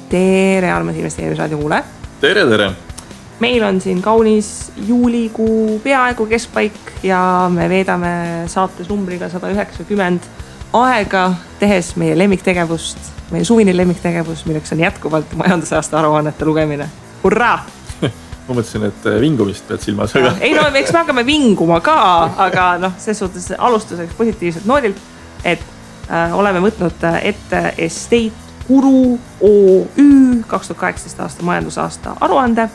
Tere, armas investeerimisraadio kuule. Tere. Meil on siin kaunis juulikuu peaaegu keskpaik ja me veedame saates numbriga 190 aega tehes meie lemmiktegevust, meie suvine lemmiktegevus, milleks on jätkuvalt majandusaasta aruannete lugemine. Hurraa! Ma mõtlesin, et vingumist pead silmas. Aga... Ei no, eks me hakkame vinguma ka, aga ses suhtes alustuseks positiivselt noodilt, et oleme võtnud ette Estate Guru OÜ 2018 aasta majandusaasta aruande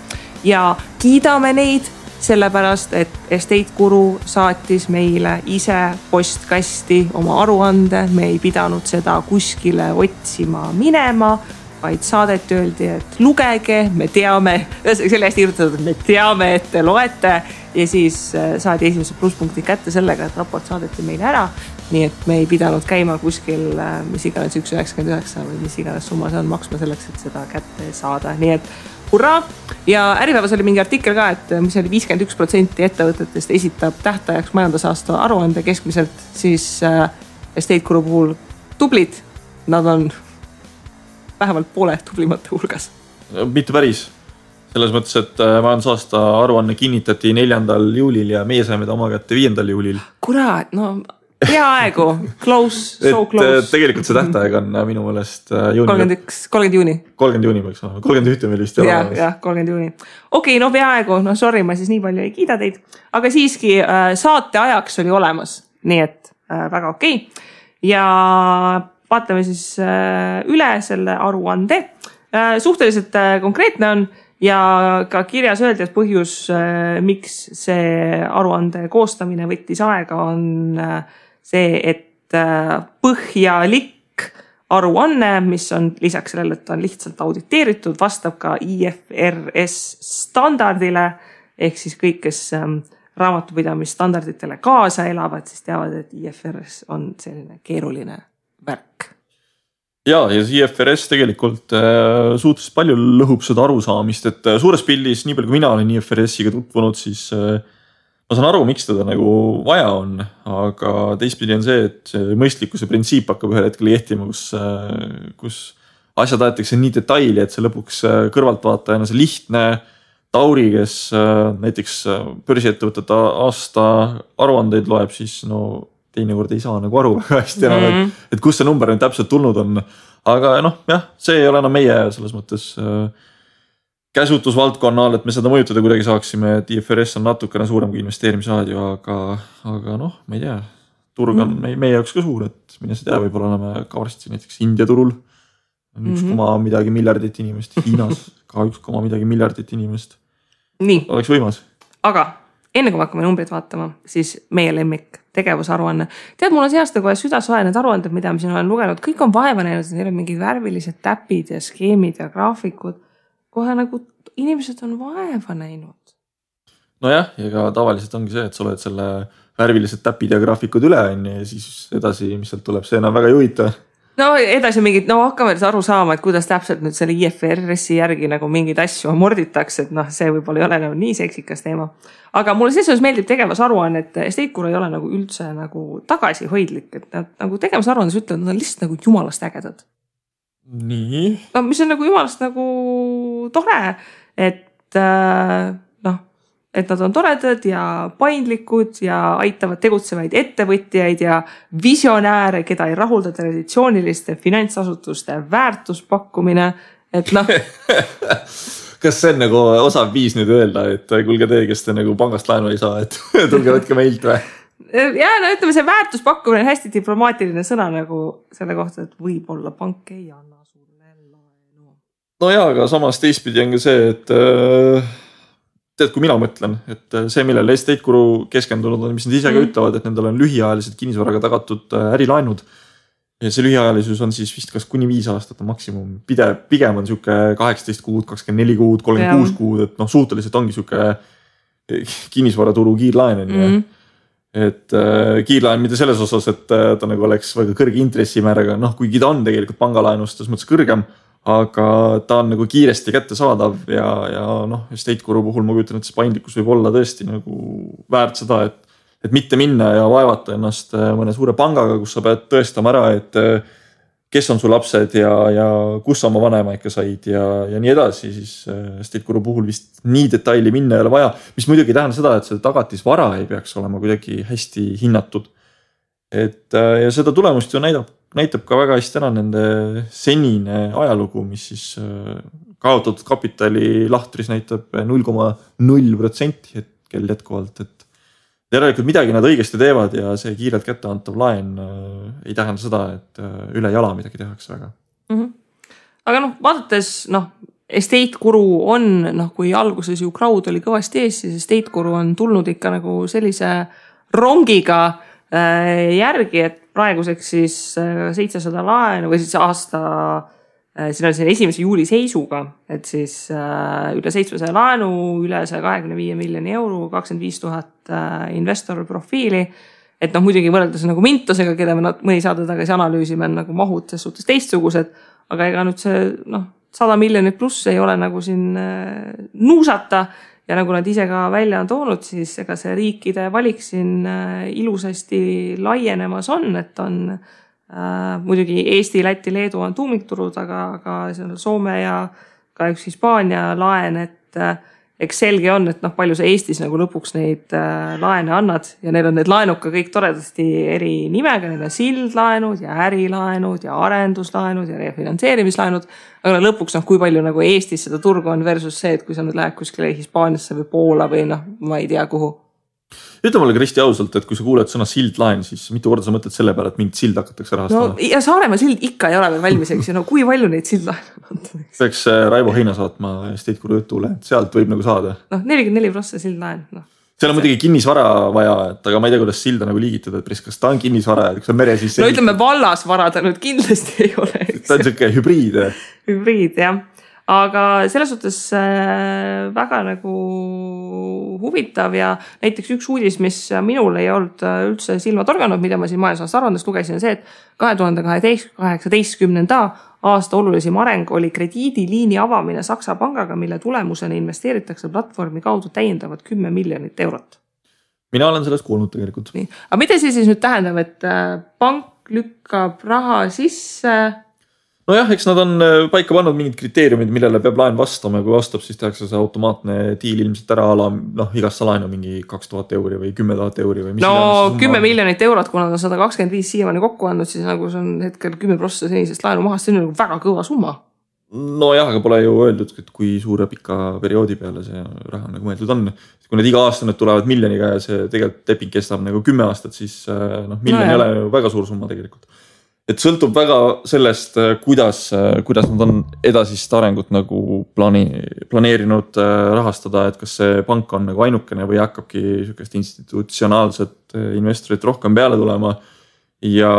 ja kiidame neid sellepärast, et Estate Guru saatis meile ise postkasti oma aruande. Me ei pidanud seda kuskile otsima minema, vaid saadet öeldi, et lugege, me teame, selle hästi kirjutatud, et me teame, et te loete ja siis saadi esimesed plusspunktid kätte sellega, et raport saadeti meile ära. Nii et me ei pidanud käima kuskil, mis iganes 1,99 või mis iganes summa see on maksma selleks, et seda kätte saada. Nii et hurraa! Ja Äripäevas oli mingi artikkel ka, et mis oli 51% ettevõtetest esitab tähtajaks majandusaasta aruande keskmiselt, siis Estate Guru puhul tublid, nad on vähemalt poole tublimate hulgas. Mitte päris. Selles mõttes, et majandusaasta aruanne kinnitati 4. juulil ja meie saime ta oma kätte 5. juulil. Kurat, no peaaegu. Close, so close. Tegelikult see tähtaeg on minu meelest juuni. 30 juuni. 30 juuni võiks olema. 31 meil vist. Jah, 30 juuni. Okei, no peaaegu. No sorry, ma siis nii palju ei kiida teid. Aga siiski saate ajaks oli olemas. Nii et väga okei. Ja vaatame siis üle selle aruande. Suhteliselt konkreetne on ja ka kirjas öeldi, et põhjus, miks see aruande koostamine võttis aega, on see, et põhjalik aruanne, mis on lisaks sellele, et on lihtsalt auditeeritud, vastab ka IFRS standardile, ehk siis kõik, kes raamatupidamisstandarditele kaasa elavad, siis teavad, et IFRS on selline keeruline värk. Ja IFRS tegelikult suhteliselt palju lõhub seda arusaamist, et suures pildis, nii palju kui mina olen IFRS-iga tutvunud, siis ma saan aru, miks teda nagu vaja on, aga teistpidi on see, et mõistlikkuse printsiip hakkab ühel hetkel kehtima, kus asjad aetakse nii detaili, et see lõpuks kõrvaltvaatajana see lihtne Tauri, kes näiteks börsiettevõtete aasta aruandeid loeb, siis no teinekord ei saa nagu aru väga hästi enam, et kus see number nüüd täpselt tulnud on. Aga jah, see ei ole enam meie selles mõttes käsutusvaldkonnal, et me seda mõjutada kuidagi saaksime, et IFRS on natukene suurem kui investeerimisraadio, aga ma ei tea, turg on meie jaoks ka suur, et mine see tea, võib-olla oleme ka varsti näiteks India turul. 1, midagi miljardit inimest, Hiinas ka 1, midagi miljardit inimest. Nii. Oleks võimas. Aga enne kui me hakkame numbrit vaatama, siis meie lemmik tegevusaruanne. Tead, mul on see aasta kohe südasoe need aruanded, mida ma siin olen lugenud. Kõik on vaeva näinud, neil on mingid värvilised täpid ja skeemid ja graafikud. Kohe nagu inimesed on vaeva näinud. Nojah, ja ka tavaliselt ongi see, et sa oled selle värvilised täpid ja graafikud üle ja siis edasi, mis sealt tuleb, see enam väga ei huvita. No edasi mingid, hakkame aru saama, et kuidas täpselt nüüd selle IFRS-i järgi nagu mingid asju morditakse, et see võib-olla ei ole nagu nii seksikas teema. Aga mulle selles meeldib tegevusaruanne, et Estate Guru ei ole nagu üldse nagu tagasihoidlik, et nad nagu tegevusaruandes ütlevad, nad on lihtsalt nagu jumalast ägedad. Nii? No, mis on nagu jumalast nagu tore, et et nad on toredad ja paindlikud ja aitavad tegutsevaid ettevõtjaid ja visionääre, keda ei rahulda traditsiooniliste finantsasutuste väärtuspakkumine, et Kas see on nagu osav viis nüüd öelda, et kuulge te, kes te nagu pangast laenu ei saa, et tulge võtke meilt või? Ja ütleme, see väärtuspakkumine on hästi diplomaatiline sõna nagu selle kohta, et võib-olla pank ei anna sulle laenu. No jaa, aga samas teistpidi on ka see, et tead, kui mina mõtlen, et see, millele Estate Guru keskendunud on, mis nad ise ka ütlevad, et nendel on lühiajalised kinnisvaraga tagatud ärilaenud. Ja see lühiajalisus on siis vist kas kuni 5 aastat on maksimum. Pigem on siuke 18 kuud, 24 kuud, 36 kuud, et suhteliselt ongi siuke kinnisvaraturu kiirlaen. Et kiirlaen mitte selles osas, et ta nagu oleks väga kõrge intressimääraga, kuigi ta on tegelikult pangalaenust selles mõttes kõrgem, aga ta on nagu kiiresti kätte saadav ja Estate Guru puhul ma kujutan, et see paindlikkus võib olla tõesti nagu väärt seda, et mitte minna ja vaevata ennast mõne suure pangaga, kus sa pead tõestama ära, et kes on su lapsed ja kus sa oma vanema ikka said ja nii edasi, siis Estate Guru puhul vist nii detaili minna ei ole vaja, mis muidugi ei tähenda seda, et see tagatisvara ei peaks olema kuidagi hästi hinnatud. Ja seda tulemust ju näitab ka väga hästi ära nende senine ajalugu, mis siis kaotatud kapitali lahtris näitab 0,0% hetkel jätkuvalt, et järelikult midagi nad õigesti teevad ja see kiirelt kätte antav laen ei tähenda seda, et üle jala midagi tehakse väga. Aga vaadates, Estate Guru on, kui alguses ju crowd oli kõvasti ees, siis Estate Guru on tulnud ikka nagu sellise rongiga järgi, et praeguseks siis 700 laenu või siis aasta, siin on 1. juuli seisuga, et siis üle 700 laenu, üle 125 miljoni euro, 25 000 investor profiili. Et muidugi võrreldes nagu Mintosega, keda me mõni saade tagasi analüüsime, on nagu mahud selles suhtes teistsugused, aga ega nüüd see 100 miljonit pluss ei ole nagu siin nuusata. Ja nagu nad ise ka välja on toonud, siis ega see riikide valik siin ilusasti laienemas on, et on muidugi Eesti, Läti, Leedu on tuumikturud, aga Soome ja ka üks Hispaania laen, et eks selge on, et palju sa Eestis nagu lõpuks neid laene annad ja neil on need laenud ka kõik toredasti eri nimega, neil on sildlaenud ja ärilaenud ja arenduslaenud ja refinantseerimislaenud, aga lõpuks kui palju nagu Eestis seda turgu on versus see, et kui sa nüüd lähed kuskile Hispaaniasse või Poola või ma ei tea kuhu. Ütle mulle Kristi ausalt, et kui sa kuuled sõna sildlaen, siis mitu korda sa mõtled selle peale, et mingit sild hakatakse rahastama? Ja Saaremaa sild ikka ei ole veel valmis, eks ju, kui palju neid sildlaene on? Peaks Raivo Heina saatma Estate Guru jutule, et sealt võib nagu saada. 44% sildlaen. Seal on muidugi kinnisvara vaja, et aga ma ei tea, kuidas silda nagu liigitada, et kas ta on kinnisvara, et kui sa mere sisse... ütleme vallasvara ta nüüd kindlasti ei ole. Ta on selline hübriid. Hübriid, jah. Aga selles suhtes väga nagu huvitav ja näiteks üks uudis, mis minul ei olnud üldse silma torganud, mida ma siin majandusaasta aruandest lugesin, on see, et 2018. aasta olulisim areng oli krediidiliini avamine Saksa pangaga, mille tulemusena investeeritakse platvormi kaudu täiendavad 10 miljonit eurot. Mina olen sellest kuulnud tegelikult. Nii. Aga mida see siis nüüd tähendab, et pank lükkab raha sisse... Nojah, eks nad on paika pannud mingid kriteeriumid, millele peab laen vastama ja kui vastab, siis tehakse see automaatne diil ilmselt ära ala, igast laenu mingi 2000 euri või 10 000 euri või mis. 10 miljonit eurot, kuna nad on 125 siiamaani kokku andnud, siis nagu see on hetkel 10% senisest laenu mahast, see on nagu väga kõva summa. Nojah, aga pole ju öeldud, et kui suure pika perioodi peale see raha nagu mõeldud on. Kui need iga aasta nüüd tulevad miljoniga ja see tegelikult leping kestab nagu 10 aastat, siis miljon ei ole ju väga suur summa tegelikult. Et sõltub väga sellest, kuidas nad on edasist arengut nagu planeerinud rahastada, et kas see pank on nagu ainukene või hakkabki sükest institutsionaalset investorit rohkem peale tulema. Ja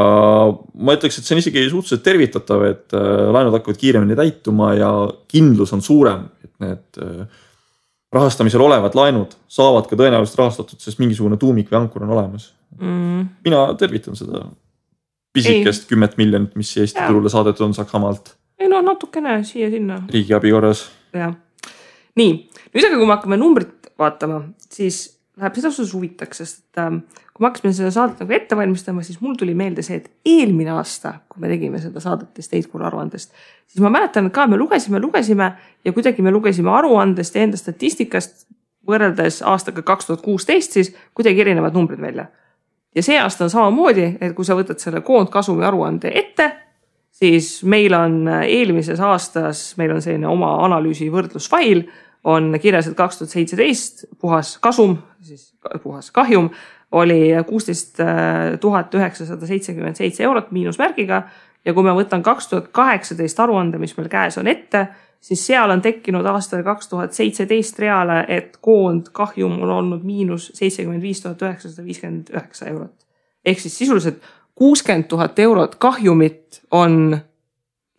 ma ütleks, et see on isegi suhteliselt tervitatav, et laenud hakkavad kiiremini täituma ja kindlus on suurem, et need rahastamisel olevad laenud saavad ka tõenäoliselt rahastatud, sest mingisugune tuumik või ankur on olemas. Mina tervitan seda. Pisikest 10 miljonit, mis Eesti turule saadetud on Saksamaalt. Ei natukene siia-sinna. Riigi abi korras. Ja. Nii, nüüd aga kui me hakkame numbrit vaatama, siis läheb seda suhtes huvitaks, sest kui me hakkasime seda saadet nagu ette valmistama, siis mul tuli meelde see, et eelmine aasta, kui me tegime seda saadet Estate Guru aruandest, siis ma mäletan ka, me lugesime ja kuidagi me lugesime aruandest ja enda statistikast võrreldes aastaga 2016, siis kuidagi erinevad numbrid välja. Ja see aasta on samamoodi, et kui sa võtad selle koondkasumi aruande ette, siis meil on eelmises aastas, meil on selline oma analüüsi võrdlusfail, on kirjas, et 2017 puhas kasum, siis puhas kahjum, oli 16 977 eurot miinusmärgiga ja kui me võtan 2018 aruande, mis meil käes on ette, siis seal on tekkinud aastal 2017 reale, et koond kahjum on olnud miinus 75 959 eurot. Ehk siis sisuliselt 60 000 eurot kahjumit on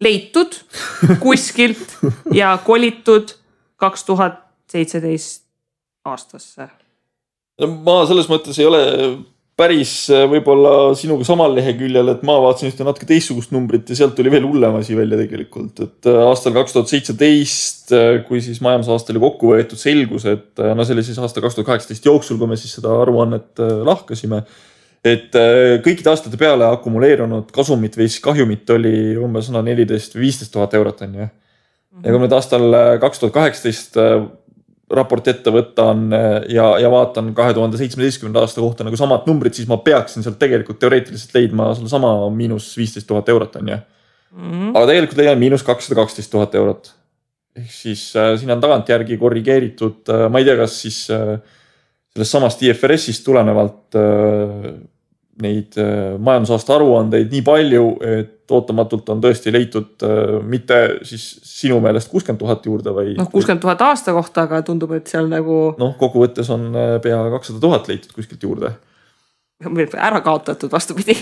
leitud kuskilt ja kolitud 2017 aastasse. Ma selles mõttes ei ole päris võib-olla sinuga samal leheküljel, et ma vaatasin ühte natuke teistsugust numbrit ja sealt tuli veel hullem asi välja tegelikult. Et aastal 2017, kui siis majandusaasta oli kokku võetud, selgus, et see oli siis aasta 2018 jooksul, kui me siis seda aruannet lahkasime, et kõikide aastate peale akumuleerunud kasumit või kahjumit oli umbes 14 või 15 000 eurot on ju. Ja kui nüüd aastal 2018 raport ette võtan ja vaatan 2017. aasta kohta nagu samad numbrid, siis ma peaksin sealt tegelikult teoreetiliselt leidma selle sama miinus 15 000 eurot on ju. Aga tegelikult leian miinus 212 000 eurot. Ehk siis siin on tagantjärgi korrigeeritud, ma ei tea, kas siis sellest samast IFRS-ist tulenevalt neid majandusaasta aruandeid nii palju, et ootamatult on tõesti leitud mitte siis sinu meelest 60 000 juurde või... 60 000 aasta kohta, aga tundub, et seal nagu... kokkuvõttes on pea 200 000 leitud kuskilt juurde. Ära kaotatud vastupidi.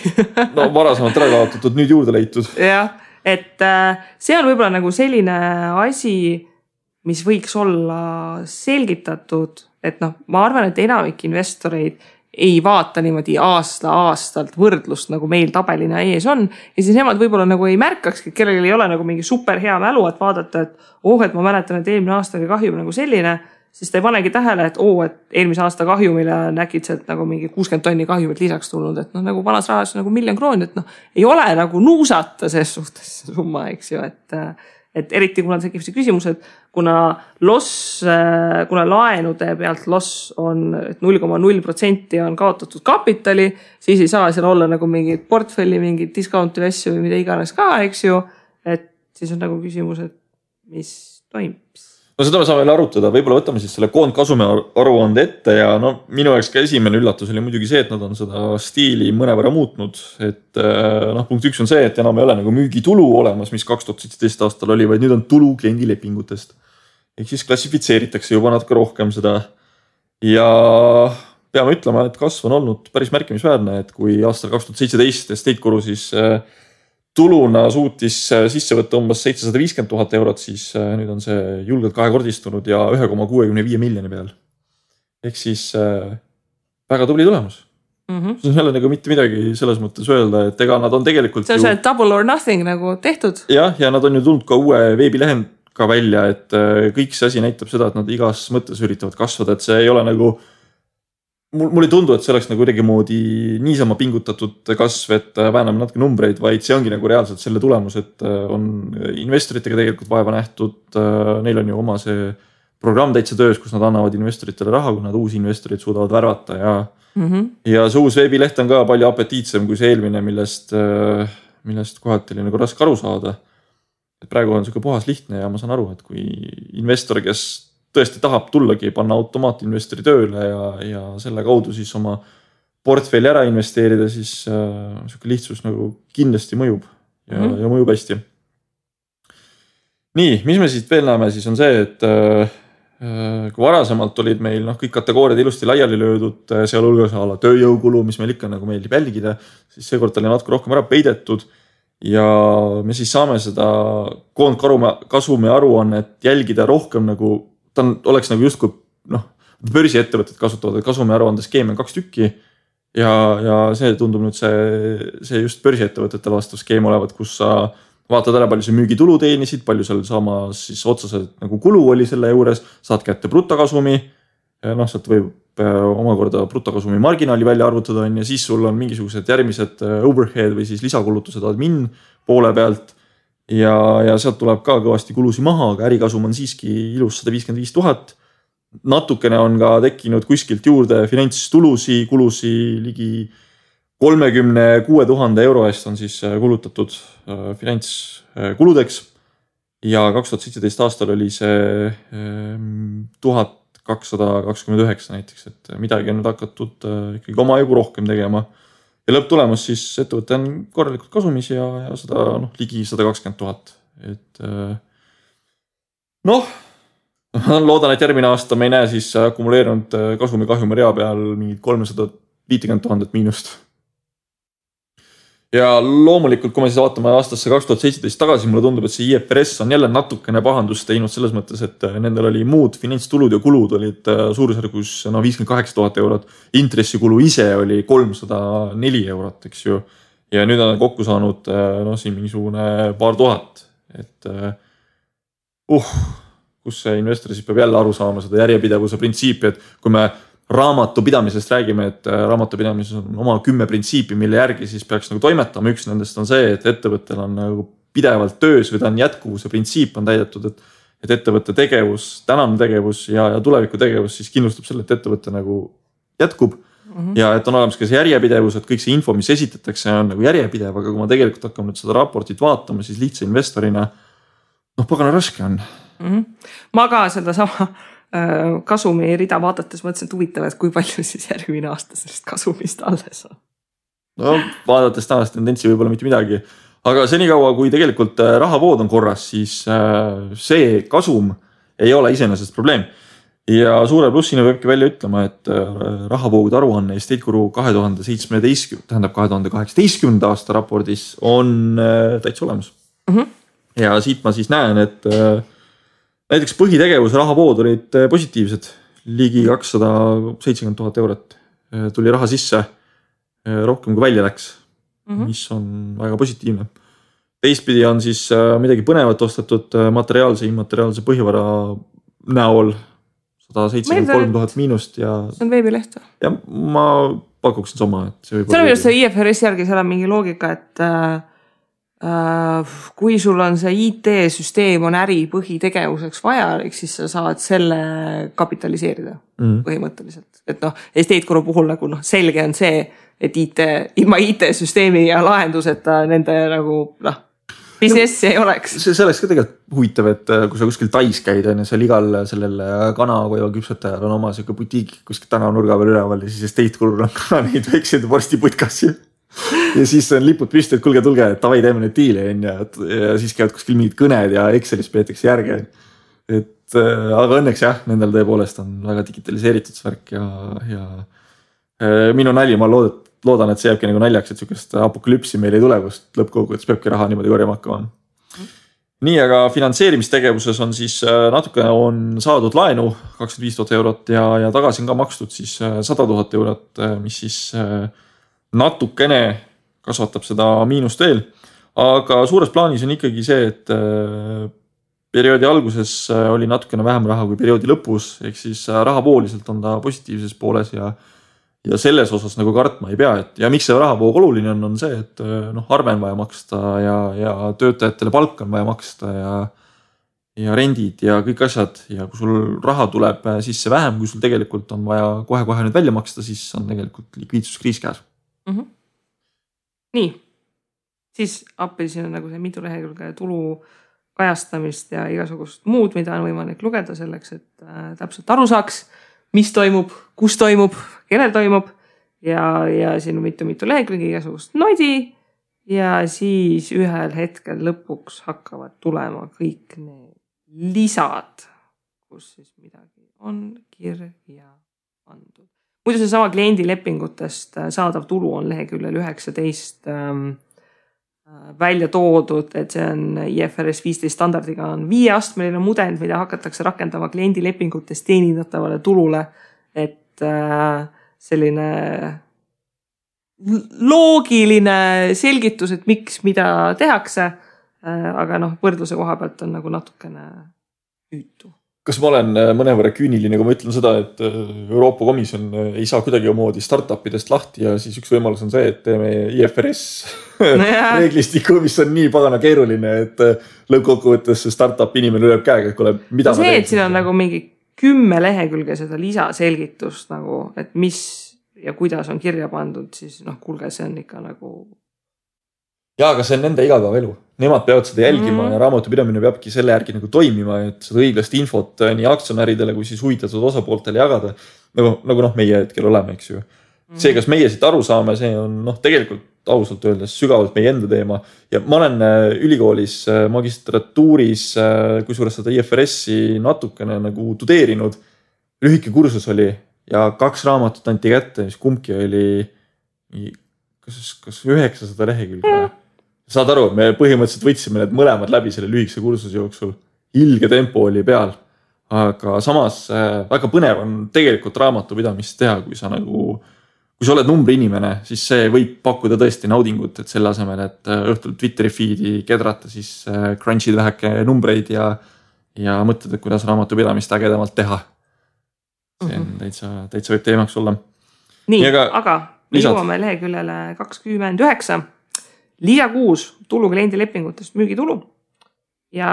Varasemalt ära kaotatud, nüüd juurde leitud. Jah, et see on võib-olla nagu selline asi, mis võiks olla selgitatud, et ma arvan, et enamik investoreid ei vaata niimoodi aastalt võrdlust, nagu meil tabelina ees on. Ja siis nemad võib-olla nagu ei märkakski, et kellel ei ole nagu mingi super hea mälu, et vaadata, et ma mäletan, et eelmine aasta oli kahjum nagu selline, siis ta ei panegi tähele, et eelmise aasta kahjumile näkid sealt nagu mingi 60 tonni kahjumit lisaks tulnud, et nagu vanas rahas nagu 1 000 000 krooni, et ei ole nagu nuusata ses suhtes summa, eks ju, et eriti kuna tekib see küsimus, et kuna laenude pealt loss on 0,0% on kaotatud kapitali, siis ei saa seal olla nagu mingid portfelli, mingid discounti asju või mida iganes ka, eks ju, et siis on nagu küsimus, et mis toimub. Seda me saame veel arutada, võib-olla võtame siis selle koondkasumi aruande ette ja minu jaoks ka esimene üllatus oli muidugi see, et nad on seda stiili mõnevõrra muutnud, et punkt 1 on see, et enam ei ole nagu müügitulu olemas, mis 2017 aastal oli, vaid nüüd on tulu kliendilepingutest. Ehk siis klassifitseeritakse juba natuke rohkem seda ja peame ütlema, et kasv on olnud päris märkimisväärne, et kui aastal 2017 Estate Guru siis tuluna suutis sisse võtta umbes 750 000 eurot, siis nüüd on see julgelt kahekordistunud ja 1,65 miljoni peal. Ehk siis väga tubli tulemus. See on jälle nagu mitte midagi selles mõttes öelda, et ega nad on tegelikult... See on see double or nothing nagu tehtud. Ja nad on ju tulnud ka uue veebilehend ka välja, et kõik see asi näitab seda, et nad igas mõttes üritavad kasvada, et see ei ole nagu... Mul ei tundu, et see oleks nagu kuidagi moodi niisama pingutatud kasv, et vääname natuke numbreid, vaid see ongi nagu reaalselt selle tulemus, et on investoritega tegelikult vaeva nähtud. Neil on ju oma see programm täitsa töös, kus nad annavad investoritele raha, kui nad uusi investorid suudavad värvata ja see uus veebileht on ka palju apetiitsem kui see eelmine, millest kohati oli nagu raske aru saada. Et praegu on selline puhas lihtne ja ma saan aru, et kui investor, kes tõesti tahab tullagi panna automaatinvestori tööle ja selle kaudu siis oma portfelli ära investeerida, siis selline lihtsus nagu kindlasti mõjub ja mõjub hästi. Nii, mis me siit veel näeme, siis on see, et kui varasemalt olid meil kõik kategooriad ilusti laiali löödud, seal hulgas ala tööjõukulu, mis meil ikka nagu meeldib jälgida, siis seekord oli natuke rohkem ära peidetud ja me siis saame seda koondkasumi aruannet jälgida rohkem nagu ta oleks nagu justkui börsiettevõtted kasutavad kasumi aruandes skeeme 2 tükki ja see tundub nüüd see just börsiettevõtetele vastav skeem olevat, kus sa vaatad ära, palju see müügitulu teenisid, palju seal samas siis otseselt nagu kulu oli selle juures, saad kätte brutokasumi, sealt võib omakorda brutokasumi marginaali välja arvutada ja siis sul on mingisugused järgmised overhead või siis lisakulutused admin poole pealt ja sealt tuleb ka kõvasti kulusi maha, aga ärikasum on siiski ilus 155 000. Natukene on ka tekkinud kuskilt juurde finantstulusi, kulusi ligi 36 000 euro eest on siis kulutatud finantskuludeks ja 2017 aastal oli see 1229 näiteks, et midagi on nüüd hakatud ikkagi omajagu rohkem tegema. Ja lõpptulemus siis ettevõte on korralikult kasumis ja seda ligi 120 000. Et loodan, et järgmine aasta me ei näe siis akumuleerunud kasumi kahjumi rea peal mingid 350 000 miinust. Ja loomulikult, kui me siis vaatame aastasse 2017 tagasi, mulle tundub, et see IFRS on jälle natukene pahandust teinud selles mõttes, et nendel oli muud finantstulud ja kulud olid suurusjärgus 58 000 eurot. Intressikulu ise oli 304 eurot, eks ju. Ja nüüd on kokku saanud siin mingisugune paar tuhat. Et kus see investor siis peab jälle aru saama seda järjepidevuse printsiipi, et kui me raamatupidamisest räägime, et raamatupidamises on oma 10 printsiipi, mille järgi siis peaks nagu toimetama. Üks nendest on see, et ettevõttel on nagu pidevalt töös või ta on jätkuvuse printsiip on täidetud, et ettevõtte tegevus, tänane tegevus ja tuleviku tegevus siis kindlustab selle, et ettevõte nagu jätkub ja et on olemas ka see järjepidevus, et kõik see info, mis esitatakse, on nagu järjepidev, aga kui ma tegelikult hakkame nüüd seda raportit vaatama, siis lihtsa investorina, pagana raske on. Ma ka seda sama kasumi rida vaadates mõtlesin, et huvitav, et kui palju siis järgmine aasta sellest kasumist alles on. Vaadates tänast tendentsi võib-olla mitte midagi, aga senikaua, kui tegelikult rahavood on korras, siis see kasum ei ole iseenesest probleem. Ja suure plussina peabki välja ütlema, et rahavoogude aruanne Estate Guru 2018. aasta raportis on täitsa olemas. Ja siit ma siis näen, et näiteks põhitegevuse rahavood olid positiivsed. Ligi 270,000 eurot tuli raha sisse, rohkem kui välja läks, mis on väga positiivne. Teistpidi on siis midagi põnevat ostetud materiaalse, immateriaalse põhivara näol 173,000 miinust ja... See on veebileht või? Ja ma pakuksin sama, et see võib olla... See IFRS järgi seal on mingi loogika, et kui sul on see IT-süsteem on äri põhitegevuseks vajalik, siis sa saad selle kapitaliseerida põhimõtteliselt. Et Estate Guru puhul nagu selge on see, et ilma IT-süsteemi ja lahenduseta nende nagu businessi ei oleks. See oleks ka tegelikult huvitav, et kui sa kuskil Tais käid, seal igal sellel kanakoiva küpsetajal on oma selline butiik kuskil tänavanurga peal üleval ja siis Estate Gurul on ka neid väikseid vorstiputkassi. Ja siis on lipud püsti, et tulge, et tavai teeme neid diile ja siis käivad kuskil mingid kõned ja Excelis peetakse järge. Aga õnneks jah, nendel tõepoolest on väga digitaliseeritud svärk ja minu nali, ma loodan, et see jääbki nagu naljaks, et sellist apokalüpsi meil ei tule, kust lõppkogudes peabki raha niimoodi korjama hakkama. Nii, aga finantseerimistegevuses on siis natuke on saadud laenu 25,000 eurot ja tagasi on ka makstud siis 100,000 eurot, mis siis natukene kasvatab seda miinust veel. Aga suures plaanis on ikkagi see, et perioodi alguses oli natukene vähem raha kui perioodi lõpus, ehk siis rahavooliselt on ta positiivses pooles ja selles osas nagu kartma ei pea, ja miks see rahavoog oluline on see, et arve on vaja maksta ja töötajatele palk on vaja maksta ja rendid ja kõik asjad ja kui sul raha tuleb sisse vähem, kui sul tegelikult on vaja kohe nüüd välja maksta, siis on tegelikult likviidsuskriis käes. Nii, siis appi siin on nagu see mitu lehekülge tulu kajastamist ja igasugust muud, mida on võimalik lugeda selleks, et täpselt aru saaks, mis toimub, kus toimub, kellel toimub ja siin on mitu lehekülge igasugust noidi ja siis ühel hetkel lõpuks hakkavad tulema kõik need lisad, kus siis midagi on kirja pandud. Muidu see sama kliendilepingutest saadav tulu on leheküljel 19 välja toodud, et see on IFRS 15 standardiga on 5-astmeline mudel, mida hakatakse rakendama kliendilepingutest teenindatavale tulule, et selline loogiline selgitus, et miks mida tehakse, aga võrdluse koha pealt on nagu natukene hüütu. Kas ma olen mõnevõrra küüniline, kui ma ütlen seda, et Euroopa Komisjon ei saa kuidagi omoodi startupidest lahti ja siis üks võimalus on see, et teeme IFRS reeglistiku, mis on nii pagana keeruline, et lõppkokkuvõttes startup inimene lööb käega, et kuule, mida ma teen. See, et siin on nagu mingi 10 lehekülge seda lisaselgitust, nagu, et mis ja kuidas on kirja pandud, siis kuulge, see on ikka nagu... Jaa, aga see on nende igapäevaelu. Nemad peavad seda jälgima ja raamatupidamine peabki selle järgi nagu toimima, et seda õiglast infot nii aktsionäridele kui siis huvitatud osapooltele jagada. Nagu meie hetkel oleme, eks ju. See, kas meie siit aru saame, see on tegelikult ausalt öeldes sügavalt meie enda teema. Ja ma olen ülikoolis magistratuuris, kui suures seda IFRS-i natukene nagu tudeerinud. Lühike kursus oli ja 2 raamatut anti kätte, mis kumbki oli kas 900 lehekülge. Saad aru, me põhimõtteliselt võtsime need mõlemad läbi selle lühikese kursuse jooksul. Ilge tempo oli peal, aga samas väga põnev on tegelikult raamatupidamist teha, kui sa oled numbri inimene, siis see võib pakkuda tõesti naudingut, et selle asemel, et õhtul Twitteri feedi kedrata, siis crunchid väheke numbreid ja mõtled, et kuidas raamatupidamist ägedamalt teha. see on täitsa võib teemaks olla. Nii, aga me jõuame leheküljele 29. Lisa 6 tulu kliendilepingutest müügitulu. Ja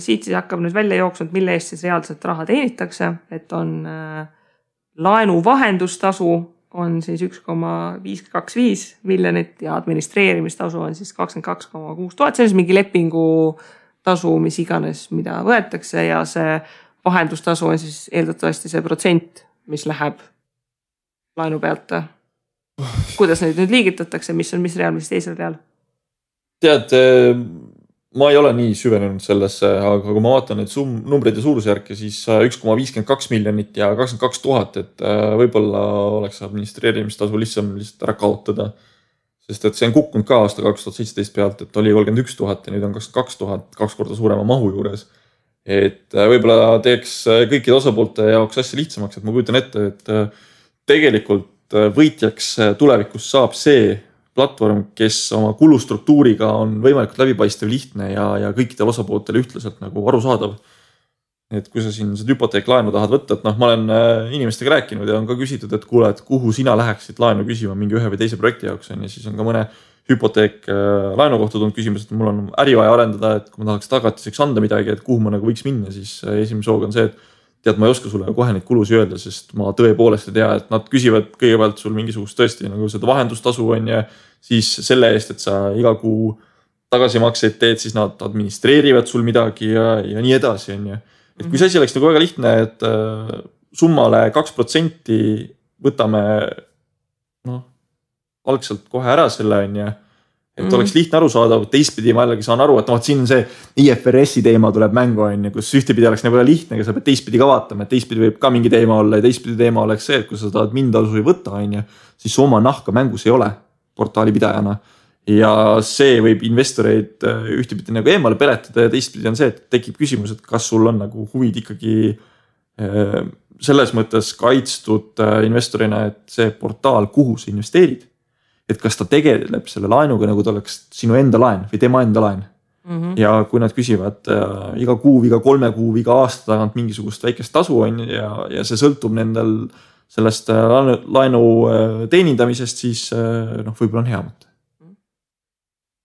siit siis hakkab nüüd välja jooksnud, mille eest siis reaalselt raha teenitakse, et on laenu vahendustasu on siis 1,525 miljonit ja administreerimistasu on siis 22,6 tuhat. See on siis mingi lepingu tasu, mis iganes, mida võetakse ja see vahendustasu on siis eeldatavasti see protsent, mis läheb laenu pealt. Kuidas neid nüüd liigitatakse, mis on mis real, mis teisel real? Tead, ma ei ole nii süvenenud sellesse, aga kui ma vaatan neid numbreid ja suurusjärke, siis 1,52 miljonit ja 22 000, et võib-olla oleks administreerimistasu lihtsalt ära kaotada. Sest et see on kukkunud ka aasta 2017 pealt, et oli 31 000 ja nüüd on 22 000, 2 korda suurema mahu juures. Et võib-olla teeks kõikide osapoolte jaoks asja lihtsamaks, et ma kujutan ette, et tegelikult võitjaks tulevikus saab see platvorm, kes oma kulustruktuuriga on võimalikult läbipaistev, lihtne ja kõikidel osapooltel ühtlaselt nagu arusaadav. Et kui sa siin seda hüpoteeklaenu tahad võtta, et ma olen inimestega rääkinud ja on ka küsitud, et kuule, et kuhu sina läheksid laenu küsima mingi ühe või teise projekti jaoks on ja siis on ka mõne hüpoteek laenu kohta tulnud küsimus, et mul on äri vaja arendada, et kui ma tahaks tagatiseks anda midagi, et kuhu ma nagu võiks minna, siis esimese hooga on see, et tead, ma ei oska sulle kohe neid kulusi öelda, sest ma tõepoolest ei tea, et nad küsivad kõigepealt sul mingisugust tõesti nagu seda vahendustasu on ja siis selle eest, et sa iga kuu tagasimakseid teed, siis nad administreerivad sul midagi ja nii edasi on ja. Et kui see asi oleks nagu väga lihtne, et summale 2% võtame algselt kohe ära selle on ja et oleks lihtne arusaadav, teistpidi ma jällegi saan aru, et siin on see IFRS-i teema tuleb mängu on ja kus ühtepidi oleks nagu lihtne, aga sa pead teistpidi ka vaatama, et teistpidi võib ka mingi teema olla ja teistpidi teema oleks see, et kui sa tahad mindasu ei võtta on ja siis oma nahka mängus ei ole portaali pidajana ja see võib investoreid ühtepidi nagu eemale peletada ja teistpidi on see, et tekib küsimus, et kas sul on nagu huvid ikkagi selles mõttes kaitstud investorina, et see portaal, kuhu sa investeerid, et kas ta tegeleb selle laenuga, nagu ta oleks sinu enda laen või tema enda laen. Ja kui nad küsivad iga kuu, iga 3 kuu, iga aasta tagant mingisugust väikest tasu on ja see sõltub nendel sellest laenu teenindamisest, siis võib-olla on hea mõte.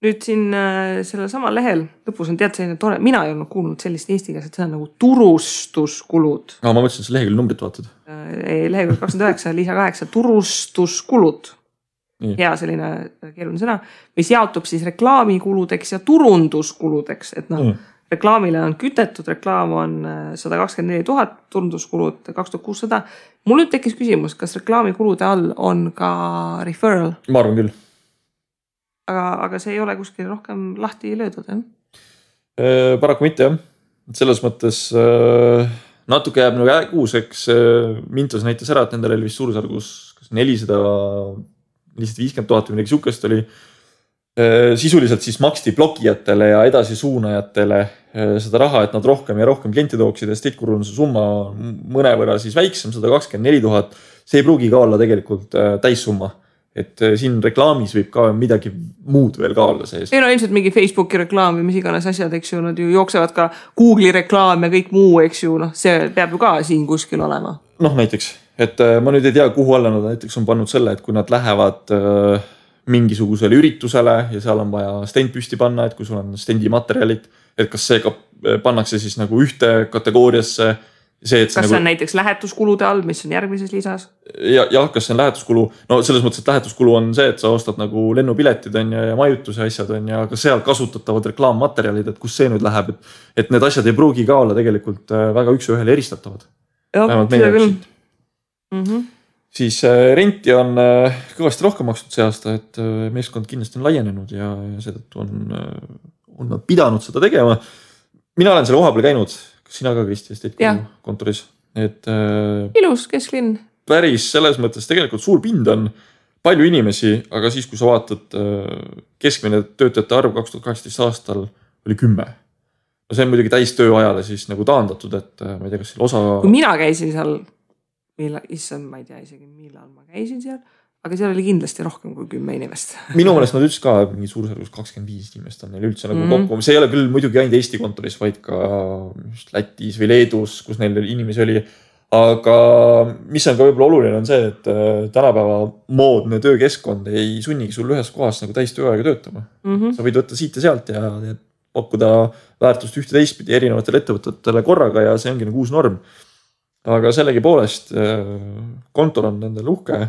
Nüüd siin selle sama lehel lõpus on tead selline tore, mina ei olnud kuulnud sellist eesti keeles, et see on nagu turustuskulud. Ma mõtlesin, see lehekülg numbrit vaatad. Lehekülg 29, Lisa 8, turustuskulud. Hea selline keeruline sõna, mis jaotub siis reklaamikuludeks ja turunduskuludeks, et reklaamile on kütetud, reklaam on 124 000, turunduskulud 2600. Mul nüüd tekkis küsimus, kas reklaamikulude all on ka referral? Ma arvan küll. Aga see ei ole kuskil rohkem lahti löödud, Paraku mitte, jah. Selles mõttes natuke jääb nagu kuuseks. Mintos näitas ära, et nendel oli vist suurusjärgus 450 000 või midagi sihukest oli. Sisuliselt siis maksti blogijatele ja edasi suunajatele seda raha, et nad rohkem ja rohkem klienti tooksid ja Estate-Guruse summa mõnevõrra siis väiksem, 124 000. See ei pruugi ka olla tegelikult täissumma. Et siin reklaamis võib ka midagi muud veel ka olla sees. Ei ilmselt mingi Facebooki reklaam või mis iganes asjad, eks ju, nad ju jooksevad ka Google'i reklaam ja kõik muu, eks ju, see peab ju ka siin kuskil olema. Näiteks, et ma nüüd ei tea, kuhu alla nad näiteks on pannud selle, et kui nad lähevad mingisugusele üritusele ja seal on vaja stend püsti panna, et kui sul on stendi materjalid, et kas see ka pannakse siis nagu ühte kategooriasse. Kas see on näiteks lähetuskulude all, mis on järgmises lisas? Ja kas see on lähetuskulu? Selles mõttes, et lähetuskulu on see, et sa ostad nagu lennupiletid on ja majutuse asjad on ja ka seal kasutatavad reklaammaterjalid, et kus see nüüd läheb, et need asjad ei pruugi ka olla tegelikult väga üks ühele eristatavad. Seda küll. Siis renti on kõvasti rohkem makstud see aasta, et meeskond kindlasti on laienenud ja seetõttu on nad pidanud seda tegema. Mina olen selle koha peal käinud. Sina ka, Kristi, Estate-Guru kontoris. Ilus kesklinn. Päris selles mõttes tegelikult suur pind on palju inimesi, aga siis, kui sa vaatad keskmine töötajate arv 2018 aastal oli 10. See on muidugi täis tööajale siis nagu taandatud, et ma ei tea, kas seal osa... Kui mina käisin seal, ma ei tea isegi millal ma käisin seal, aga seal oli kindlasti rohkem kui 10 inimest. Minu mõnest nad ütles ka mingi suurusjärgus 25 inimest on neil üldse nagu kokku. See ei ole küll muidugi ainult Eesti kontoris, vaid ka Lätis või Leedus, kus neil inimesi oli. aga mis on ka võib-olla oluline on see, et tänapäeva moodne töökeskkond ei sunnigi sul ühes kohas nagu täis tööaega töötama. Sa võid võtta siit ja sealt ja pakkuda väärtust ühte teistpidi erinevatele ettevõtetele korraga ja see ongi nagu uus norm. Aga sellegi poolest kontor on nendel uhke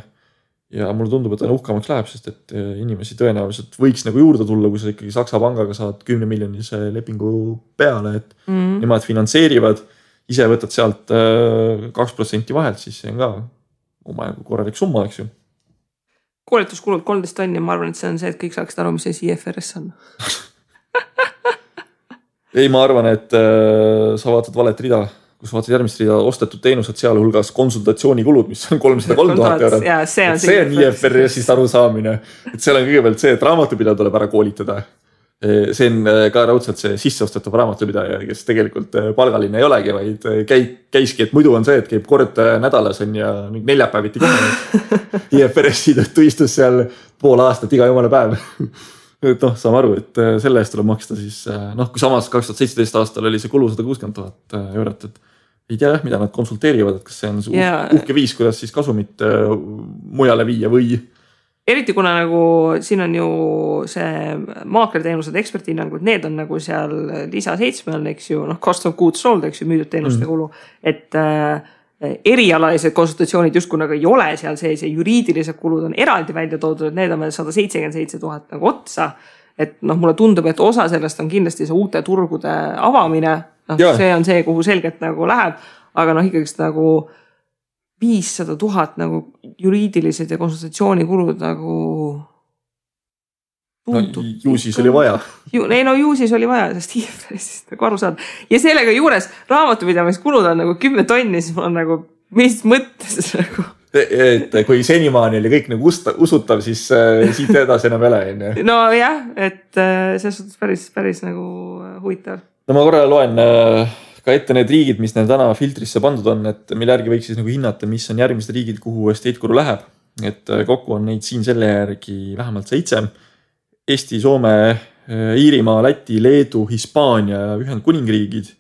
ja mulle tundub, et uhkamaks läheb, sest et inimesi tõenäoliselt võiks nagu juurde tulla, kui sa ikkagi Saksa pangaga saad 10 miljonilise lepingu peale, et nemad finantseerivad, ise võtad sealt 2% vahelt, siis see on ka omajagu korralik summa, eks ju. Koolituskulud 13 tonni, ma arvan, et see on see, et kõik saaksid aru, mis see IFRS on. Ei, ma arvan, et sa vaatad valet rida, kus vaatad järgmist rida ostetud teenused, seal hulgas konsultatsioonikulud, mis on 303 000 eurot. See on IFRS-ist arusaamine. Et seal on kõigepealt see, et raamatupidaja tuleb ära koolitada. See on ka raudselt see sisseostetav raamatupidaja, kes tegelikult palgaline ei olegi, vaid käiski, et muidu on see, et käib kord nädalas on ja neljapäeviti kohe. IFRS-i tõttu istus seal pool aastat iga jumala päev. Et saame aru, et selle eest tuleb maksta siis, kui samas 2017 aastal oli see kulu 160 000 eurot, et ei tea, mida nad konsulteerivad, et kas see on uhke viis, kuidas siis kasumit mujale viia või. Eriti kuna nagu siin on ju see maaklerteenused, ekspertihinnangud, need on nagu seal lisa 7 on, eks ju, cost of goods sold, eks ju, müüdud teenuste kulu, et erialalised konsultatsioonid justkui nagu ei ole seal sees ja juriidilised kulud on eraldi välja toodud, et need on meil 177 000 nagu otsa. Et mulle tundub, et osa sellest on kindlasti see uute turgude avamine. See on see, kuhu selgelt nagu läheb, aga ikkagist nagu 500 000 nagu juriidilised ja konsultatsioonikulud nagu tundub. Ju siis oli vaja. Ju siis oli vaja, sest IFRS-ist nagu aru saada. Ja sellega juures raamatupidamiskulud on nagu 10 tonni, siis mul on nagu mis mõttes nagu. Et kui senimaani oli kõik nagu usutav, siis siit edasi enam ei ole. No jah, et see on päris nagu huvitav. No ma korra loen ka ette need riigid, mis neil täna filtrisse pandud on, et mille järgi võiks siis nagu hinnata, mis on järgmised riigid, kuhu Estate Guru läheb. Et kokku on neid siin selle järgi vähemalt 7. Eesti, Soome, Iirimaa, Läti, Leedu, Hispaania ja Ühendkuningriigid.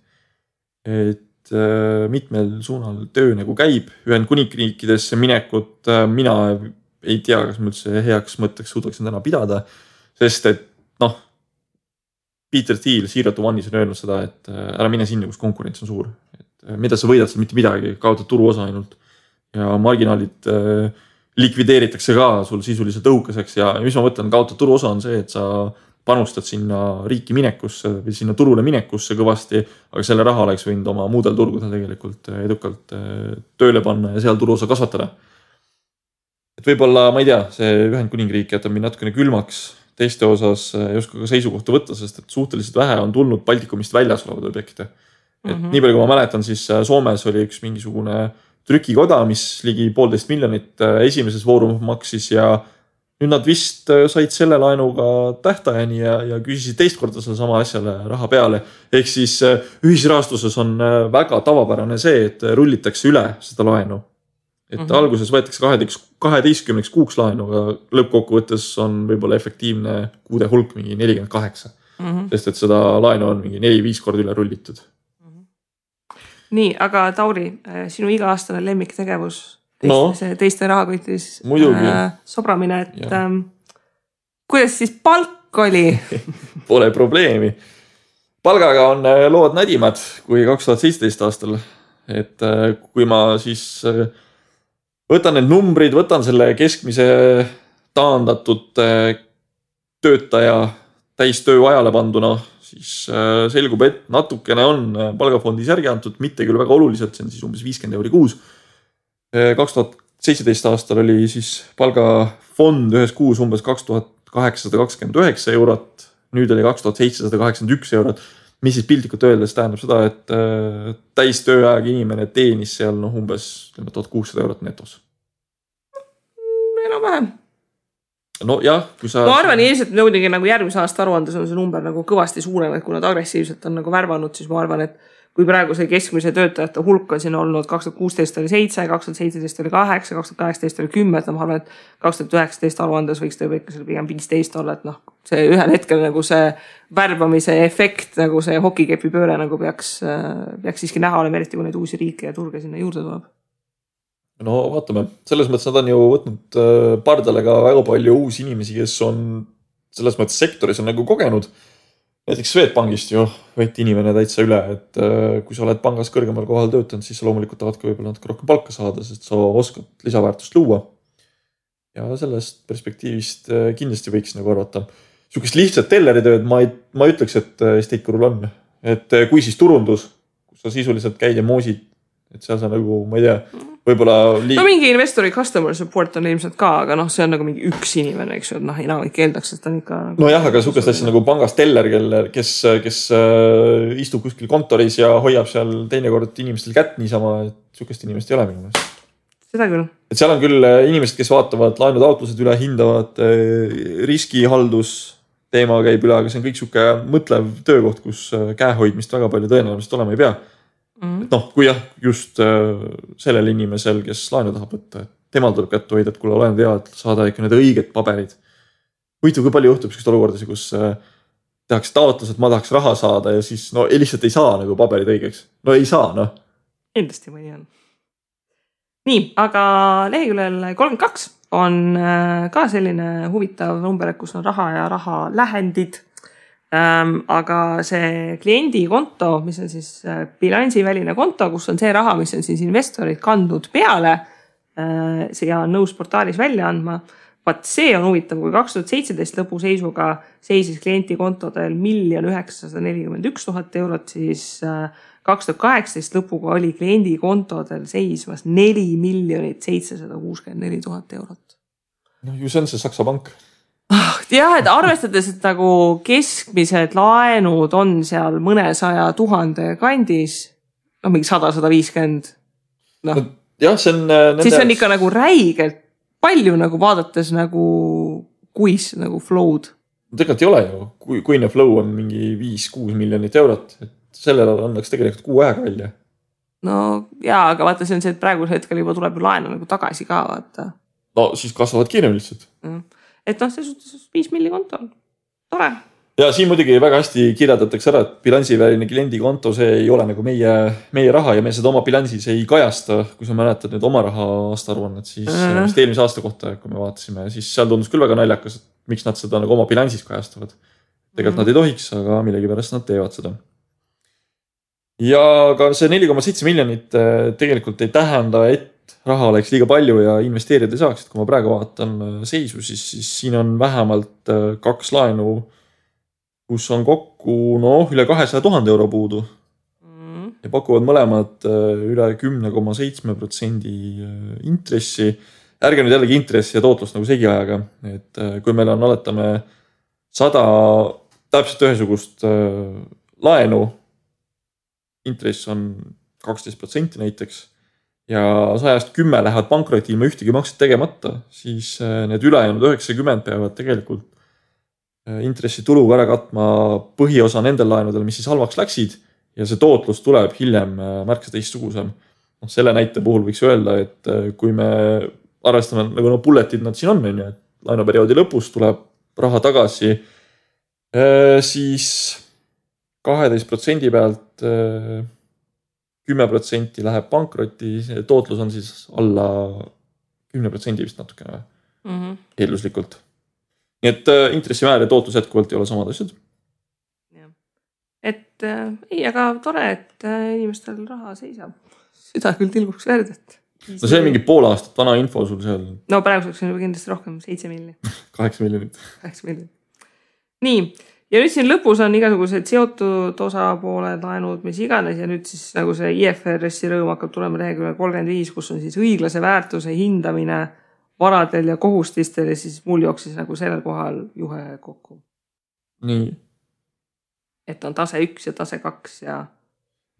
Et mitmel suunal töö nagu käib. Ühendkuningriikidesse minekut mina ei tea, kas ma üldse heaks mõtteks suudaksin täna pidada, sest et Peter Thiel Zero to One'is on öelnud seda, et ära mine sinna, kus konkurents on suur. Et mida sa võidad seal mitte midagi, kaotad turuosa ainult ja marginaalid likvideeritakse ka sul sisuliselt õhukeseks ja mis ma mõtlen, kaotad turuosa on see, et sa panustad sinna riiki minekusse või sinna turule minekusse kõvasti, aga selle raha oleks võinud oma muudel turgudel tegelikult edukalt tööle panna ja seal turuosa kasvatada. Et võib-olla, ma ei tea, see Ühendkuningriik jätab mind natukene külmaks teiste osas ei oska ka seisukohta võtta, sest et suhteliselt vähe on tulnud Baltikumist väljas olevad objekte. Et nii palju, kui ma mäletan, siis Soomes oli üks mingisugune trükikoda, mis ligi 1,5 miljonit esimeses vooru maksis ja nüüd nad vist said selle laenuga tähtajani ja küsisid teist korda selle sama asjale raha peale. Ehk siis ühisrahastuses on väga tavapärane see, et rullitakse üle seda laenu. Et alguses võetakse 12 kuuks laenu, aga lõppkokkuvõttes on võib-olla efektiivne kuude hulk mingi 48. Sest et seda laenu on mingi 4-5 korda üle rullitud. Nii, aga Tauri, sinu iga-aastane lemmiktegevus teiste rahakotis sobramine, et kuidas siis palk oli? Pole probleemi. Palgaga on lood nädimad kui 2017 aastal. Et kui ma siis võtan need numbrid, võtan selle keskmise taandatud töötaja täistöö ajale panduna, siis selgub, et natukene on palgafondis järgi antud, mitte küll väga oluliselt, see on siis umbes 50 € kuus. 2017 aastal oli siis palgafond ühes kuus umbes 2829 €, nüüd oli 2781 €, mis siis piltlikult öeldes tähendab seda, et täistööajaga inimene teenis seal umbes 1600 € netos. Enam-vähem. No jah, kui sa... Ma arvan ilmselt nõudigi nagu järgmise aasta aruandes on see number nagu kõvasti suurem, et kui nad agressiivselt on nagu värvanud, siis ma arvan, et kui praegu see keskmise töötajate hulk on siin olnud 2016 oli 7, 2017 oli 8, 2018 oli 10, ma arvan, et 2019 aruandes võiks tõi ikka seal pigem 15 olla, et noh, see ühel hetkel nagu see värbamise efekt, nagu see hokikepi pööre nagu peaks siiski näha olema, eriti kui neid uusi riike ja turge sinna juurde tuleb. No vaatame, selles mõttes nad on ju võtnud pardale ka väga palju uusi inimesi, kes on selles mõttes sektoris on nagu kogenud. Näiteks Swedbankist ju võeti inimene täitsa üle, et kui sa oled pangas kõrgemal kohal töötanud, siis sa loomulikult tahad ka võib-olla natuke rohkem palka saada, sest sa oskad lisaväärtust luua. Ja sellest perspektiivist kindlasti võiks nagu arvata. Sukest lihtsalt telleritööd ma ütleks, et Estate Gurul on. Et kui siis turundus, kus sa sisuliselt käid ja moosid, et seal sa nagu, ma ei tea, võib-olla no mingi investori customer support on ilmselt ka, aga noh, see on nagu mingi üks inimene, eks ju, et noh, enamik keeldaks, et ta on ikka nagu... No jah, aga sukest asja nagu pangas teller, kes istub kuskil kontoris ja hoiab seal teinekord inimestel kätt niisama, et sukest inimest ei ole minu meelest. Seda küll. Et seal on küll inimesed, kes vaatavad laenutaotlused üle, hindavad riskihaldus teema käib üle, aga see on kõik suke mõtlev töökoht, kus käehoidmist väga palju tõenäoliselt olema ei pea. Et noh, kui jah, just sellel inimesel, kes laenu tahab võtta, et temal tuleb kätte hoida, et kuule olen tead, saada ikka need õiged paberid. Huvitav, kui palju juhtub sellist olukordasid, kus tehakse taotlus, et ma tahaks raha saada ja siis no lihtsalt ei saa nagu paberid õigeks. No ei saa, noh. Endasti mõni on. Nii, aga leheküljel 32 on ka selline huvitav number, kus on raha ja raha lähendid. Aga see kliendikonto, mis on siis bilansiväline konto, kus on see raha, mis on siis investorid kandnud peale ja on nõus portaalis välja andma. Vaat see on huvitav, kui 2017 lõpu seisuga seisis klientikontodel 1 941 000 eurot, siis 2018 lõpuga oli kliendikontodel seismas 4 764 000 eurot. No ju see on see Saksa pank. Jah, et arvestades, et nagu keskmised laenud on seal mõnesaja 1000 kandis, no mingi 100-150, noh. Jah, see on siis see on ikka nagu räigelt palju nagu vaadates nagu kuis nagu flow'd. Tegelikult ei ole ju, kuine flow on mingi 5-6 miljonit eurot, et sellele annaks tegelikult kuu aega välja. No jaa, aga vaata, see on see, et praeguse hetkel juba tuleb laenu nagu tagasi ka, vaata. No siis kasvavad kiirem lihtsalt. Et noh, see suhtes 5 milli konto on tore. Ja siin muidugi väga hästi kirjeldatakse ära, et bilansiväline kliendikonto, see ei ole nagu meie raha ja me seda oma bilansis ei kajasta. Kui sa mäletad nüüd oma raha aastaaruannet, siis eelmise aasta kohta, kui me vaatasime, siis seal tundus küll väga naljakas, et miks nad seda nagu oma bilansis kajastavad. Tegelikult nad ei tohiks, aga millegipärast nad teevad seda. Ja ka see 4,7 miljonit tegelikult ei tähenda, et raha oleks liiga palju ja investeerida ei saaks, et kui ma praegu vaatan seisu, siis siin on vähemalt 2 laenu, kus on kokku üle 200 000 euro puudu ja pakuvad mõlemad üle 10,7% intressi. Ärge nüüd jällegi intressi ja tootlust nagu segi ajaga, et kui meil on oletame 100 täpselt ühesugust laenu, intress on 12% näiteks, ja 110 lähevad pankroti ilma ühtegi makset tegemata, siis need ülejäänud 90 peavad tegelikult intressituluga ära katma põhiosa nendel laenudel, mis siis halvaks läksid ja see tootlus tuleb hiljem märksa teistsugusem. Selle näite puhul võiks öelda, et kui me arvestame nagu bulletid nad siin on, et laenuperioodi lõpus tuleb raha tagasi, siis 12% pealt 10% läheb pankroti, tootlus on siis alla 10% vist natukene eelduslikult. Nii et intressimäär ja tootlus jätkuvalt ei ole samad asjad. Et ei, aga tore, et inimestel raha seisab. Seda küll tilguks verd, et... No see on mingi pool aastat vana info sul seal. No praeguseks on juba kindlasti rohkem, 7 miljonit. 8 miljonit. 8 miljonit. Nii. Ja nüüd siin lõpus on igasugused seotud osapooled, laenud, mis iganes ja nüüd siis nagu see IFRS-i rõõm hakkab tulema leheküljel 35, kus on siis õiglase väärtuse hindamine varadel ja kohustistel ja siis mul jooksis nagu sellel kohal juhe kokku. Nii. Et on tase 1 ja tase 2 ja...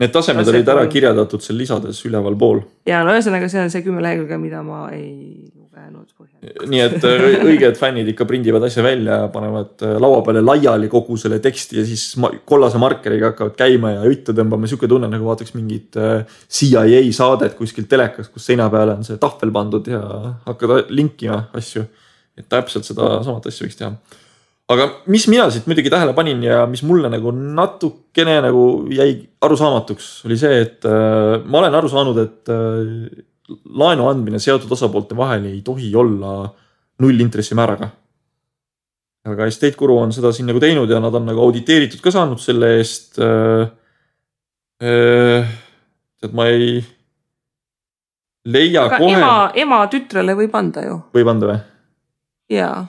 Need tasemed olid ära kirjeldatud seal lisades üleval pool. Ja no ühesõnaga see on see 10 lehekülge, mida ma ei lugenud põhjal. nii et õiged fännid ikka prindivad asja välja ja panevad laua peale laiali kogu selle teksti ja siis kollase markeriga hakkavad käima ja juttu tõmbama. Siuke tunne nagu vaataks mingit CIA saadet kuskilt telekas, kus seina peale on see tahvel pandud ja hakkad linkima asju. Et täpselt seda samat asja võiks teha. Aga mis mina siit muidugi tähele panin ja mis mulle nagu natukene nagu jäi arusaamatuks oli see, et ma olen aru saanud, et laenu andmine seotud osapoolte vahel ei tohi olla 0 intressimääraga. Aga Estate Guru on seda siin nagu teinud ja nad on nagu auditeeritud ka saanud selle eest. Et ma ei leia aga kohe. Ema tütrele võib anda ju. Võib anda või? Jaa.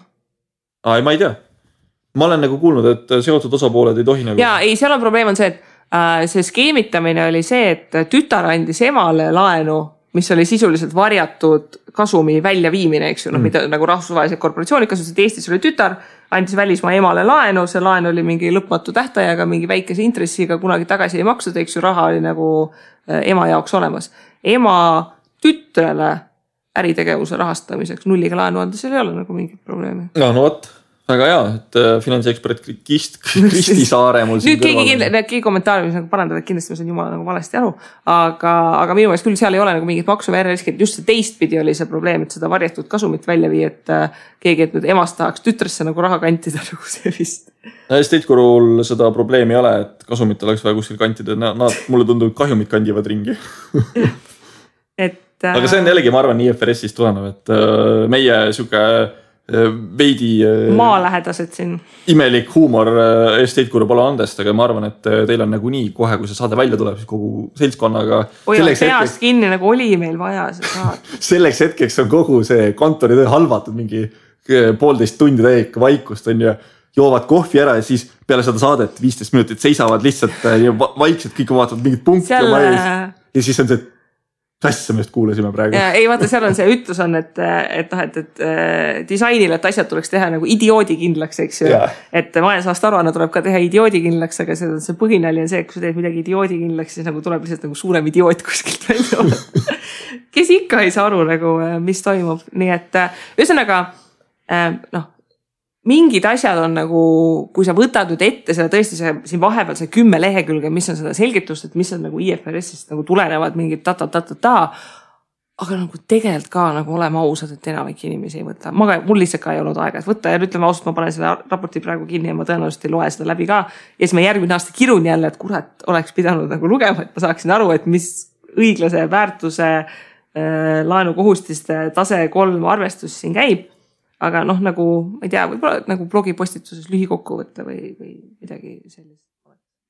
Ma ei tea. Ma olen nagu kuulnud, et seotud osapooled ei tohi nagu. Jaa, ei, seal on probleem on see, et see skeemitamine oli see, et tütar andis emale laenu, mis oli sisuliselt varjatud kasumi väljaviimine, eks ju, mida nagu rahvusvahelised korporatsioonid kasutasid. Eestis oli tütar, andis välismaa emale laenu, see laen oli mingi lõpmatu tähtajaga, mingi väikese intressiga, kunagi tagasi ei maksud, eks ju, raha oli nagu ema jaoks olemas. Ema tütrele äritegevuse rahastamiseks 0 laenu anda, seal ei ole nagu mingit probleemi. No võt. Väga hea, et finantsekspert Kristi Saare mul siin kõrval. Nüüd keegi kommentaariumis nagu parandada, et kindlasti ma saan jumala nagu valesti aru, aga minu meelest küll seal ei ole nagu mingit maksu või riski, et just see teistpidi oli see probleem, et seda varjatud kasumit välja vii, et keegi, et nüüd emast tahaks tütresse nagu raha kantida nagu see vist. Estate Gurul seda probleemi ei ole, et kasumit oleks vaja kuskil kantida, nad mulle tundub kahjumid kandivad ringi. Aga see on jällegi, ma arvan, IFRS-ist tulenev, et meie siuke veidi maalähedased siin. Imelik huumor Estate Guru pole andest, aga ma arvan, et teil on nagu nii kohe, kui see saade välja tuleb, siis kogu seltskonnaga. Peast kinni nagu oli meil vaja see saade. Selleks hetkeks on kogu see kontori töö halvatud mingi 1,5 tundi täiega vaikust on ja joovad kohvi ära ja siis peale seda saadet 15 minutit seisavad lihtsalt vaikselt, kõik vaatavad mingid punkti oma ees ja siis on see asja me just kuulasime praegu. Ei vaata, seal on see ütlus on, et disainile, et asjad tuleks teha nagu idioodikindlaks, eks ju. Et majandusaasta aruanne tuleb ka teha idioodikindlaks, aga see põhinali on see, et kui sa teed midagi idioodikindlaks, siis nagu tuleb lihtsalt nagu suurem idioot kuskilt välja olla. Kes ikka ei saa aru nagu, mis toimub. Nii et ühesõnaga, mingid asjad on nagu, kui sa võtad nüüd ette seda tõesti siin vahepeal see 10 lehekülge, mis on seda selgitust, et mis on nagu IFRS-ist nagu tulenevad mingid aga nagu tegelikult ka nagu olema ausad, et enamik inimesi ei võta. Mul lihtsalt ka ei olnud aega, et võtta ja ütleme ausalt, ma panen selle raporti praegu kinni ja ma tõenäoliselt ei loe seda läbi ka. Ja siis ma järgmine aasta kirun jälle, et kurat oleks pidanud nagu lugema, et ma saaksin aru, et mis õiglase väärtuse laenukohustiste tase 3 arvestus siin käib. Aga nagu, ma ei tea, võib-olla nagu blogipostituses lühikokkuvõtte või midagi sellist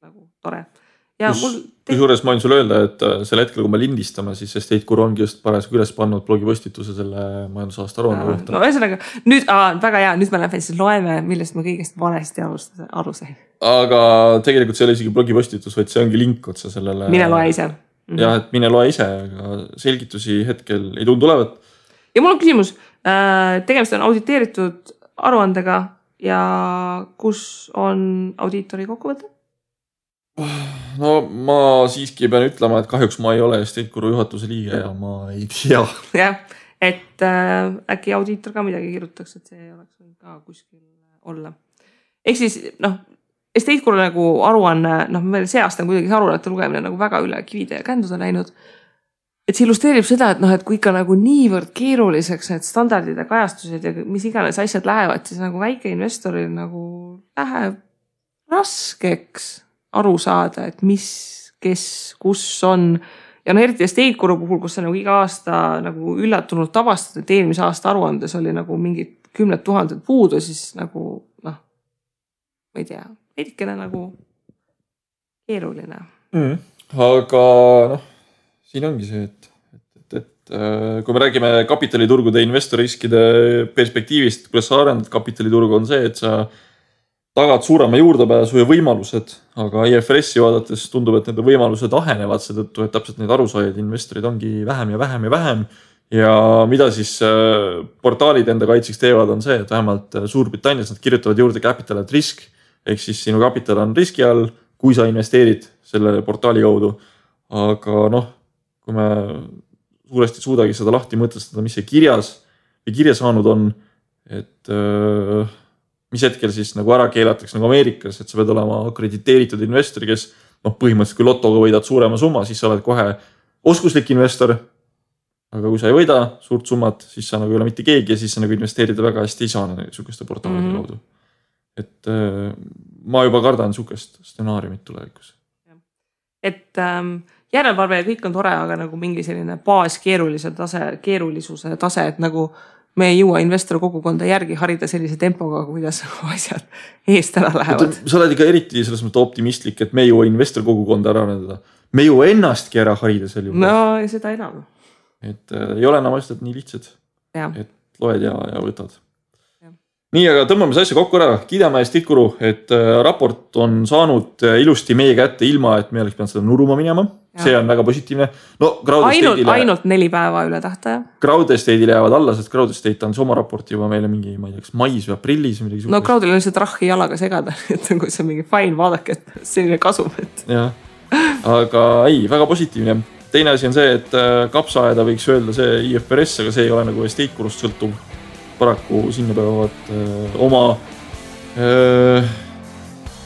nagu tore. Ja Kusjuures ma võin sulle öelda, et selle hetkel, kui me lindistame, siis Estate Guru ongi just parasjagu üles pannud blogipostituse selle majandusaasta aruande kohta. No ühesõnaga, nüüd väga hea, nüüd me lähme siis loeme, millest ma kõigest valesti aru sain. Aga tegelikult see ei ole isegi blogipostitus, vaid see ongi link otsa sellele. Mine loe ise. Jah, et mine loe ise, aga selgitusi hetkel ei tundu olevat. Ja mul on küsimus, tegemist on auditeeritud aruandega ja kus on audiitori kokkuvõte? No ma siiski pean ütlema, et kahjuks ma ei ole Estate Guru juhatuse liige ja ma ei tea. Jah, et äkki audiitor ka midagi kirjutaks, et see oleks ka kuskil olla. Ehk siis, Estate Guru nagu aruanne, meil see aasta on kuidagi aruannete lugemine nagu väga üle kivide ja känduse läinud. Et see illustreerib seda, et kui ikka nagu niivõrd keeruliseks need standardid ja kajastused ja mis iganes asjad lähevad, siis nagu väike investoril nagu läheb raskeks aru saada, et mis, kes, kus on. Ja eriti Estate Guru puhul, kus sa nagu iga aasta nagu üllatunult tavastad, et eelmise aasta aruandes oli nagu mingid 10 000 puudu, siis nagu, ma ei tea, veidikene nagu keeruline. Aga siin ongi see, et kui me räägime kapitaliturgude investoriskide perspektiivist, kuidas sa arendad kapitaliturgu on see, et sa tagad suurema juurdepääsu ja võimalused, aga IFRS-i vaadates tundub, et nende võimalused ahenevad seetõttu, et täpselt neid arusaajaid investorid ongi vähem ja vähem ja vähem. Ja mida siis portaalid enda kaitseks teevad on see, et vähemalt Suurbritannias nad kirjutavad juurde capital at risk, ehk siis sinu kapital on riski all, kui sa investeerid selle portaali kaudu. Aga kui me suuresti suudagi seda lahti mõtestada, mis see kirjas, ja kirja saanud on, et mis hetkel siis nagu ära keelatakse nagu Ameerikas, et sa pead olema akrediteeritud investori, kes põhimõtteliselt kui lotoga võidad suurema summa, siis sa oled kohe oskuslik investor. Aga kui sa ei võida suurt summat, siis sa nagu ei ole mitte keegi ja siis sa nagu investeerida väga hästi ei saa niisuguste portaalide kaudu. Et ma juba kardan niisugust stsenaariumit tulevikus. Et järelevalve ja kõik on tore, aga nagu mingi selline keerulisuse tase, et nagu me ei jõua investor kogukonda järgi harida sellise tempoga, kuidas asjad eest ära lähevad. Sa oled ikka eriti selles mõttes optimistlik, et me ei jõua investor kogukonda ära arendada. Me ei jõua ennastki ära harida sel juhul. No ja seda enam. Et ei ole enam asjad nii lihtsad, et loed ja võtad. Nii, aga tõmbame see asja kokku ära. Kiidame Estate Guru, et raport on saanud ilusti meie kätte ilma, et me oleks pidanud seda nuruma minema. See on väga positiivne. No, ainult 4 päeva üle tähtaja. Crowd Estate'ile jäävad alla, sest Crowd Estate on oma raporti juba meile mingi, ma ei tea, mais või aprillis. No Crowdil on lihtsalt rahhi jalaga segada, et kui see on mingi fine, vaadake, et selline kasum. Ja, aga ei, väga positiivne. Teine asi on see, et kapsaaeda võiks öelda see IFRS, aga see ei ole nagu Estate Gurust sõltuv. Paraku sinna peavad oma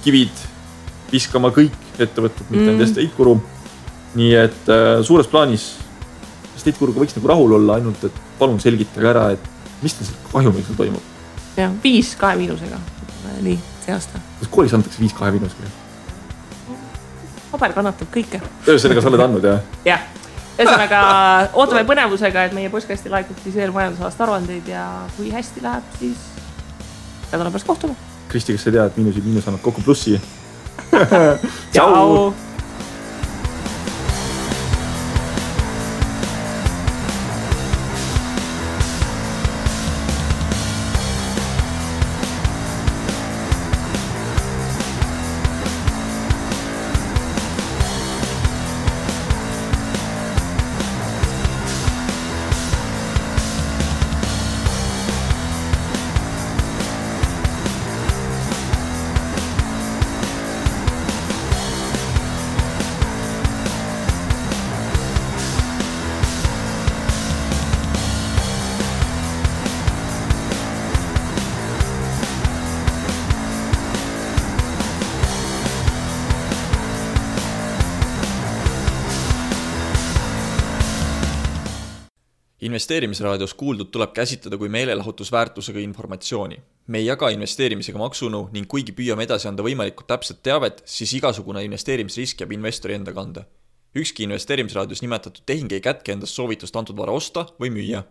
kivid viskama kõik ettevõtted, mitte need Estate Guru. Nii et suures plaanis Estate Guruga võiks nagu rahul olla, ainult et palun selgitage ära, et mis teil kahjumiks toimub. Ja, 5 2 miinusega. Nii, see aasta. Kas koolis antakse 5 2 miinusega? Paber kannatab kõike. Sellega sa oled andnud, jah? Jah. Ühesõnaga, ootame põnevusega, et meie postkasti laekub siis veel majandusaasta aruandeid ja kui hästi läheb, siis nädala pärast kohtume. Kristi, kas sa tead, et miinus annab kokku plussi? Ciao! Investeerimisraadios kuuldud tuleb käsitleda kui meelelahutusväärtusega informatsiooni. Me ei jaga investeerimisega maksunõu ning kuigi püüame edasi anda võimalikult täpset teavet, siis igasugune investeerimisrisk jääb investori enda kanda. Ükski investeerimisraadios nimetatud tehing ei kätke endast soovitust antud vara osta või müüa.